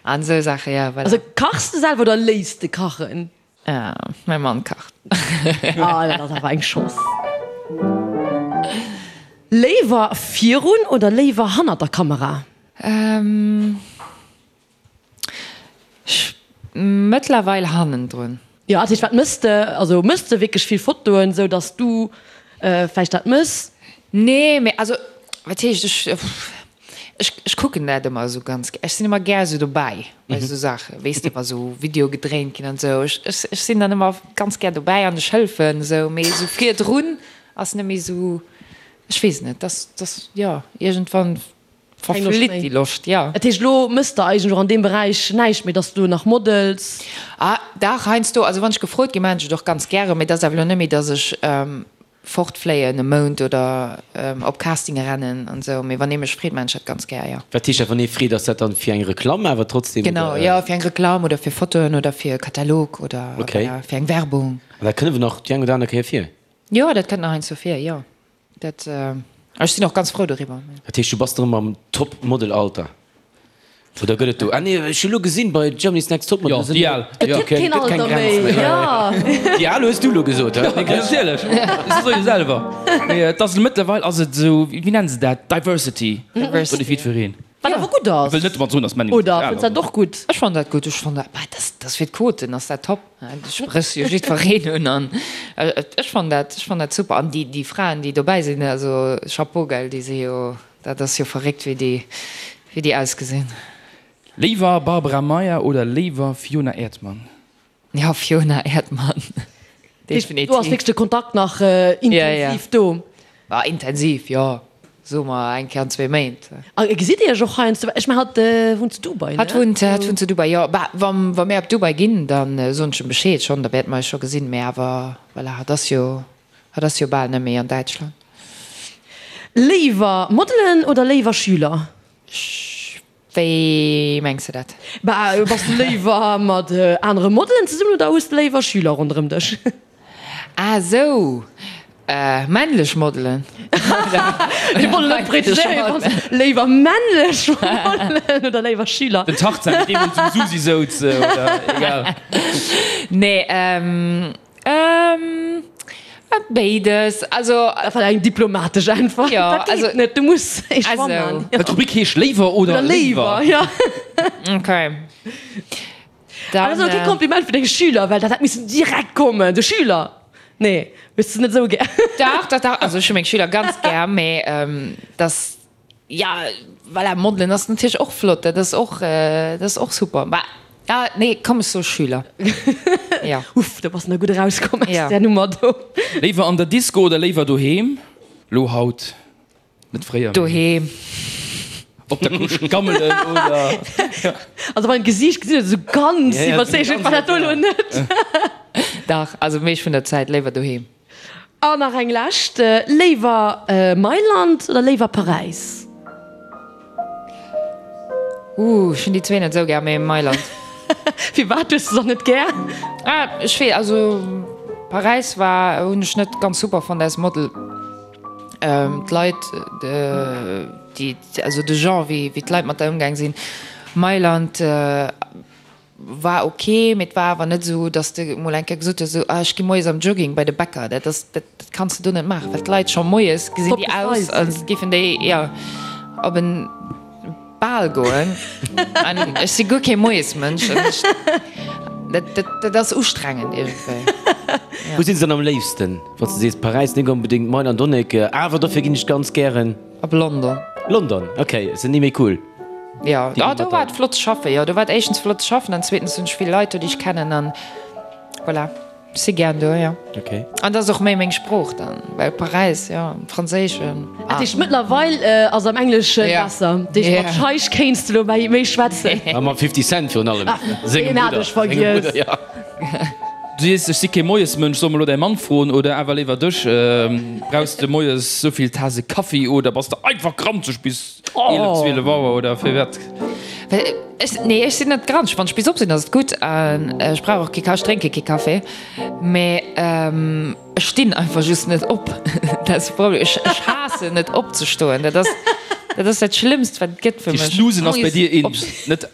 an esou Saachen, jo voilà. Also kachs de selwer oder léiss de kachen? Mäi Mann kacht. Ah, dat ass awer eng Chance. Léiwer virun oder léiwer hannert der Kamera? Ech mëttlerweil hannendrun. Jo, dat heescht, wat mëss de? Also mëss de wierklech vill Fotoen, sou dass du vläicht dat mëss? Nee, mee also wat heescht, ech ech ech kucken dat ëmmer esou ganz gär. Ech sinn ëmmer gär esou dobäi bei esou Saachen, weess de, wa sou Videoe gedréint ginn an esou. Ech ech ech sinn dann ëmmer ganz gär dobäi an ech hëlfen esou, mee esou virdrun ass net méi esou, ech weess net, dass dass jo iergendwann Verflitt déi Loscht, jo. Dat heescht, elo mëss de eigentlech och an deem Beräich näischt méi, dass du nach models? Ah, dach, heiansdo. Also wann ech gefrot ginn, maachen ech et och ganz gären. Mee et ass awer elo net méi, dass ech fortfléien e Mount oder op Castinge rennen an esou. Mee wann ee mech freet, maachen ech dat ganz gär, jo. Wat heescht dat, wann ee freet? Ass dat dann fir eng Reklamm awer trotzdem, Genau, oder? jo, fir eng Reklamm oder fir Fotoen oder fir e Katalog oder Okay. fir eng Werbung. An dat kënne wir nach déi eng oder aner Kéier vir? Jo, dat kënnt nach heiansdo vir, jo. Dat, ech sinn och ganz frou doriwwer. Dat heescht, du bass erëm am Top-Model-Alter? Oder gëtt et do, ah nee, ech hu lo gesinn bei Germany's Next Topmodel, Jo, déi al. Et gëtt keen Alter méi, jo. Déi al hues du lo gesot, hä? Natierlech, ech soe jo selwer. Mee et ass mëttlerweil ass et esou, wéi nennen se dat, Diversity. Diversity. Gëtt et jiddwereen. Wat awer gutt ass. Ech wëll net domat soen, datt Männer Oder fënns dat och gutt? Ech fannen dat gutt. Ech fannen dat, bah, dat ass fir d'Quoten ass dat top. Du spréchs jo jiddwereen un an ech fannen dat, ech fannen dat super. An déi, déi Fraen, déi dobäi sinn, also Chapeau, gell, déi si jo, dat ass jo verréckt, wéi déi, wéi déi ausgesinn. Léiwer Barbara Meyer oder léiwer Fiona Erdmann? Jo, Fiona Erdmann, definitiv. Do ass wierklech de Kontakt nach intensiv do. Bah, intensiv, jo, soe mer eng Kéier an zwee Méint. A gesitt Dir Iech och heiansdo? Ech mengen, hatt wunnt zu Dubai, ne? Hatt wunnt, hatt wunnt zu Dubai, jo. Bah, wa, wa mir op Dubai ginn, da soen ech em Bescheed schonn, da wäerte mer eis scho gesinn. Mee awer, voilà, hatt ass jo, hatt ass jo bal net méi an Däitschland. Léiwer Modelen oder léiwer Schüler? Wéi mengs de dat? Bah, bass de léiwer mat anere Modelen zesummen oder hues de léiwer Schüler ronderëm dech? Ah esou, männlech Modelen. Mir wollen net präziséieren, léiwer männlech Modelen oder léiwer Schüler? Den Tarzan, deen deemools um Susi souz, oder egal. Nee, Ähm, béides, also. Dat war eng diplomatesch Äntwert. Jo, Dat also. geet net, du muss ee Choix man. Also. D'Rubrik heescht Léiwer oder Oder léiwer. léiwer, ja. Okay. Dann. Dat ass awer kee Kompliment fir deng Schüler, well dat hätt missen direkt kommen. De Schüler, nee, hues de net esou gär. Dach, dach, dach, also ech hu meng Schüler ganz gär, mee dass. Ja, voilà, Modelen ass natierlech och flott, dat ass och, dat ass och super. Mä, ah, nee, komm, ech soe Schüler. Ja. Uff, do bass de nach gutt erauskomm aus Ja. där Nummer do. Léiwer an der Disco oder léiwer doheem? Lo haut, net fréier, mee. Doheem. Op der Couche gammelen oder? Also beim Gesiicht gesinn et esou ganz Ja, ja, iwwerzeegend war dat do elo net. Dach, also meescht vun der Zäit léiwer doheem. An nach eng lescht, Léiwer Mailand oder léiwer Paräis? Ooh, ech hunn déi zwee net esou gär, mee Mailand. Firwat hues de se net gär? Ah, ech wee, also Paräis war, hunn ech net ganz super fonnt als Model. D'Leit, déi, also de Genre wéi d'Leit mat der ëmgaang sinn. Mailand. War ok, mee et war awer net esou, dass de mol eng Kéier gesot hues, esou, ah ech gi moies am Jogging bei de Bäcker. Dat ass, dat kanns de do net maachen, well d'Leit scho moies gesinn déi aus, als géifen déi, jo, op en Bal goen. An ech si guer kee Moiesmënsch an ech, dat, dat, dat ass ustrengend iergendwéi. Wou sinn se dann am léifsten, wann s de sees Paräis net onbedéngt, Mailand och net, awer dofir ginn ech ganz gären? Op London. London, ok, se ni méi cool. Jo, ah, do war et flott ze schaffen. Jo, do war et éischtens flott ze schaffen an zweetens hunn ech vill Leit do, déi ech kennen an voilà, ech si gären do, jo. Ok. An dat ass och méi meng Sprooch dann, well Paräis, jo, Franséischen, Dat heescht, mëttlerweil ass am Englesche besser. Dat heescht, mat Scheich kéints de lo méi schwätzen. A mam 50 Cent virun allem, sengem Deen hat Brudder. ech vergiess. Sengem Brudder, jo. Du sees, ech si kee Moiesmënsch, soll mer elo däi Mann froen oder awer léiwer dech? Brauchs de moies souvill Tase Kaffi oder bass de einfach granzeg bis 11, 12 Auer oder firwat? Ech, nee, ech sinn net granzeg. Wann ech bis op sinn, ass et gutt. An ech brauch och kee Kaffi, ech drénke kee Kaffi. Mee ech stinn einfach just net op. Dat ass de Problem. Ech, ech haassen et opzestoen. Dat ass, dat ass dat Schlëmmst, wat et gëtt fir mech. Snoozen ass bei dir in, net?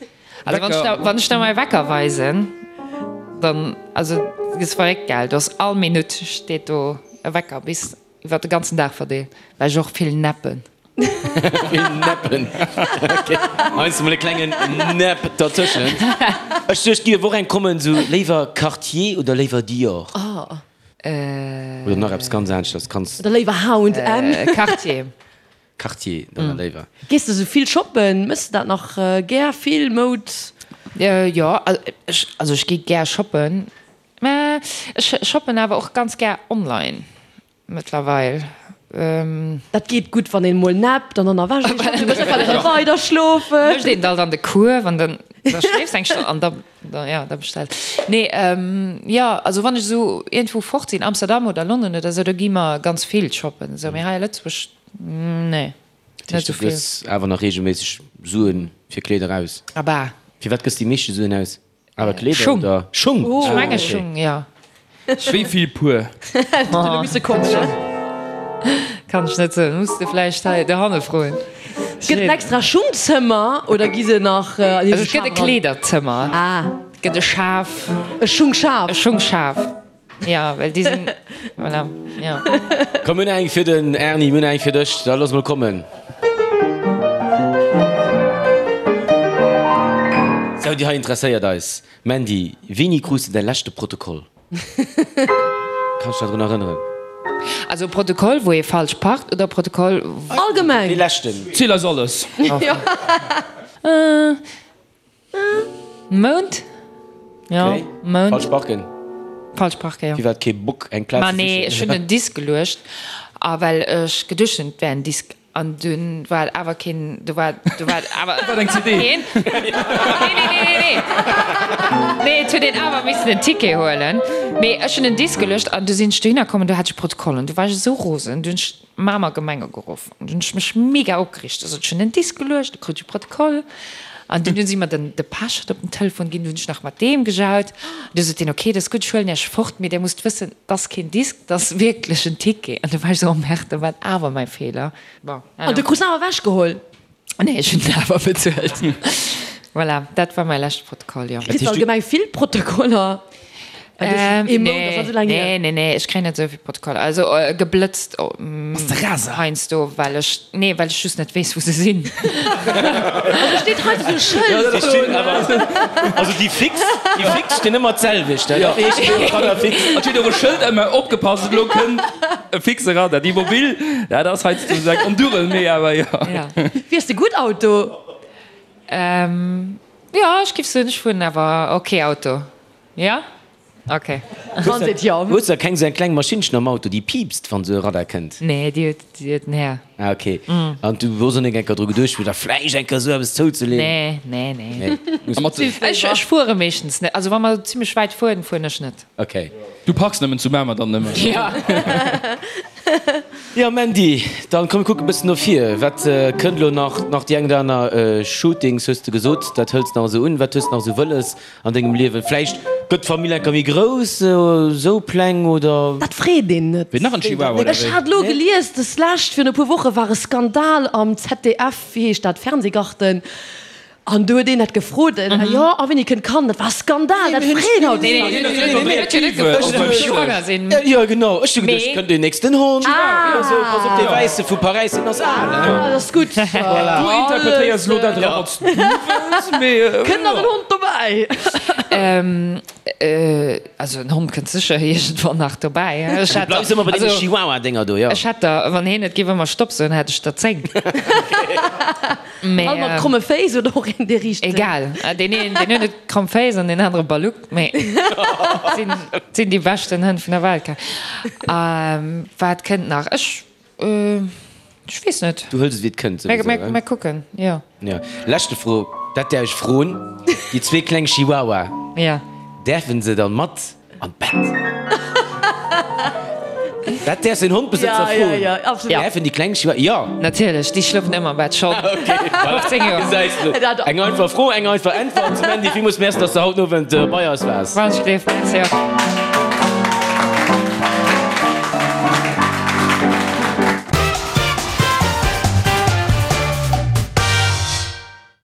Also wann ech der, wann ech der mäi Wecker weisen, dann, also du gëss verréckt, gell? Du ass all Minutt steet do e Wecker bis iwwer de ganzen Dag verdeelt, well ech och vill neppen. Vill neppen, ok. Heiansdo mol e klengen Nap dertëschent. Ech duecht, et géif och eng kommen, sou léiwer Cartier oder léiwer Dior? Oder nach eppes ganz aneschters, kanns. Oder léiwer H und M? Cartier. Cartier dann léiwer. Gees de sou vill shoppen? Mëss de dat nach gär vill, Moud? Jo, also ech gi gär shoppen, mä ech shoppen awer och ganz gär online mëttlerweil. Dat geet gutt, wann een mol nappt an dann erwächt een schonn, du wëlls einfach erëm weider schlofen. Mécht een alt an de Kuerf an dann da schléifs eng Stonn an da jo da bestells. Nee, jo also wann ech esou iergendwou fort sinn, Amsterdam oder London oder esou, do gi mer ganz vill shoppen esou, mee hei a Lëtzebuerg Nee, Dat heescht, net du esou vill. gëss awer nach reegelméisseg Suen fir Kleeder aus? Abah. Fir wat gëss de déi meeschte Suen aus? Awer Kleeder Schung. oder Schung? Ech Ah, menge okay. Schung, jo. Wéi vill Puer? Huet misse kommen. Kann ech net soen, muss de vläicht hei dohanne froen. Gëtt et en extra Schungzëmmer oder gi se nach an Also et gëtt e Kleederzëmmer, et gëtt e Schaf. E Schungschaf? E Schungschaf, jo, well déi sinn, voilà, jo. Komm, mir hunn eng fir den Erny, mir hunn eng fir dech, da looss mol kommen. Sou, déi hei interesséiert eis. Mandy, wéini krus de däi leschte Protokoll? Kanns dech drun erënneren? Also e Protokoll wou ee falsch parkt oder e Protokoll. Allgemeng. Dee leschten. Ziel eis alles. Mount? Jo, Mount. Falsch parken. Falsch parken, jo. Firwat kee Bock eng Plaz Ma ze nee, sichen? ech hunn en Disk geluecht a well ech geduecht hunn, et wär en Disk. An dunn war et awer keen, do war, do war et awer. War et eng CD? Keen. Nee, nee, nee, nee, nee. Nee, et huet een awer missen en Ticket huelen. Mee ech hunn en Disk geluecht an du sinn ech dohinner komm an du hat ech Protokoll an du war ech esou rosen. Du hunn ech d'Mamer Gemeng ugeruff an du hunn ech mech mega opgereegt. Du sot ech hunn en Disk geluecht, du krut ech e Protokoll. An dunn hunn si mer den de Pechert op den Telefon ginn, du hunn ech nach mat deem gejaut. Du sot deen, okay, dat ass gutt, ech huelen Iech fort, mee Dir musst wëssen, 't ass keen Disk, 't ass wierklech en Ticket. An du war ech esou, oh merde, dat war awer mäi Feeler. Bon, An du krus en awer ewechgeholl? Nee, ech hunn en awer bezuelt. Voilà, dat war mäi leschte Protokoll, jo. Kriss de allgemeng vill Protokoller? Ee Mount ass net esou laang hier. Nee, nee, nee, ech kréien net esou vill Protokoller. Also geblëtzt heiansdo, well ech, nee, well ech just net weess, wou se sinn. Also steet hei esou e Schëld do. Also déi fix, déi fix stinn ëmmer d'selwecht, dat heescht do Radar fix. An steet och e Schëld ëmmer, opgepasst, elo kënnt e fixe Radar. Déi mobil, dat ass heiansdo esou eng Ondurel, mee awer jo. Fiers de gutt Auto? Jo, ech géif soen, ech fueren awer ok Auto. Jo? Ok. Wann seet jo. Hues de keng sou eng kleng Maschinnchen am Auto déi piipst wann sou e Radar kënnt? Nee, déi huet, déi huet den Här. Ah ok. An du hues och nek enker dru geduecht fir der vläicht enker sou eppes zouzeleen? Nee, nee, nee. Nee. Ech, ech fuere meeschtens net. Also wa mer zimlech wäit fueren, fueren ech net. Ok. Du parks nëmmen zu Mamer dann nëmmen? Jo. Jo Mandy, dann komm mir kucken e bëssen no vir. Wat kënnt elo nach? Nach déi eng oder aner Shootings hues de gesot, dat hëls nach esou un. Wat hues de nach esou wëlles An dengem Liewen? Vläicht gëtt d'Famill enker méi grouss, esou Pläng oder? Dat freet een net. Wéi nach en Chihuahua oder Ech wéi? hat elo gelies, des lescht, virun e puer Woche war e Skandal am ZDF, wéi heescht dat, Fernsehgarten, an do huet een dat gefrot, jo, a wéini kënnt d'Kand? Dat war e Skandal, dat freet haut Nee, keen. nee, nee, nee, huet jo net gefrot, ob ech schwanger sinn. Jo, genau, ech hu geduecht, kënnt deen nächsten Hond? Ah. Esou, pass op, dee Wäisse vu Paräis, deen ass al, hein? Ah, dat ass gutt. Voilà. Du interpretéiers elo dat era, wat s du wëlls, mee. Kënnt nach en Hond dobäi? Also en Hond kënnt sécher iergendwann nach dobäi. Ech Du hätt bleifs ëmmer bei deene Chihuahua-Dénger do, jo? Ech hätt der, wann heen net géif ëmmer Stopp soen, hätt ech der 10. Mee. All mat kromme Féiss oder och een, dee riicht? Egal. Deen een, deen huet net kromm Féiss an deen anere Balluck, mee sinn, sinn déi beschten Hënn vun der Welt. Wat kënnt nach? Ech. Ech weess net. Du hëls et wéi et kënnt souwisou, Mir, mir kucken, jo. Jo. Leschte Fro, dat däerf ech froen, Déi zwee kleng Chihuahua, Ja. däerfen se dann mat an d'Bett? Dat däerfs en Hondbesëtzer Ja, froen. ja, ja, absolut. Däerfen déi kleng Chihuahua, jo. Natierlech, déi schlofen ëmmer am Bett, scho 15 Joer. Gesäis de. Eng einfach Fro, eng einfach Äntwert. Mandy, villmools Merci, dass de haut den Owend bei eis waars. Wann ech gleef, Merci och.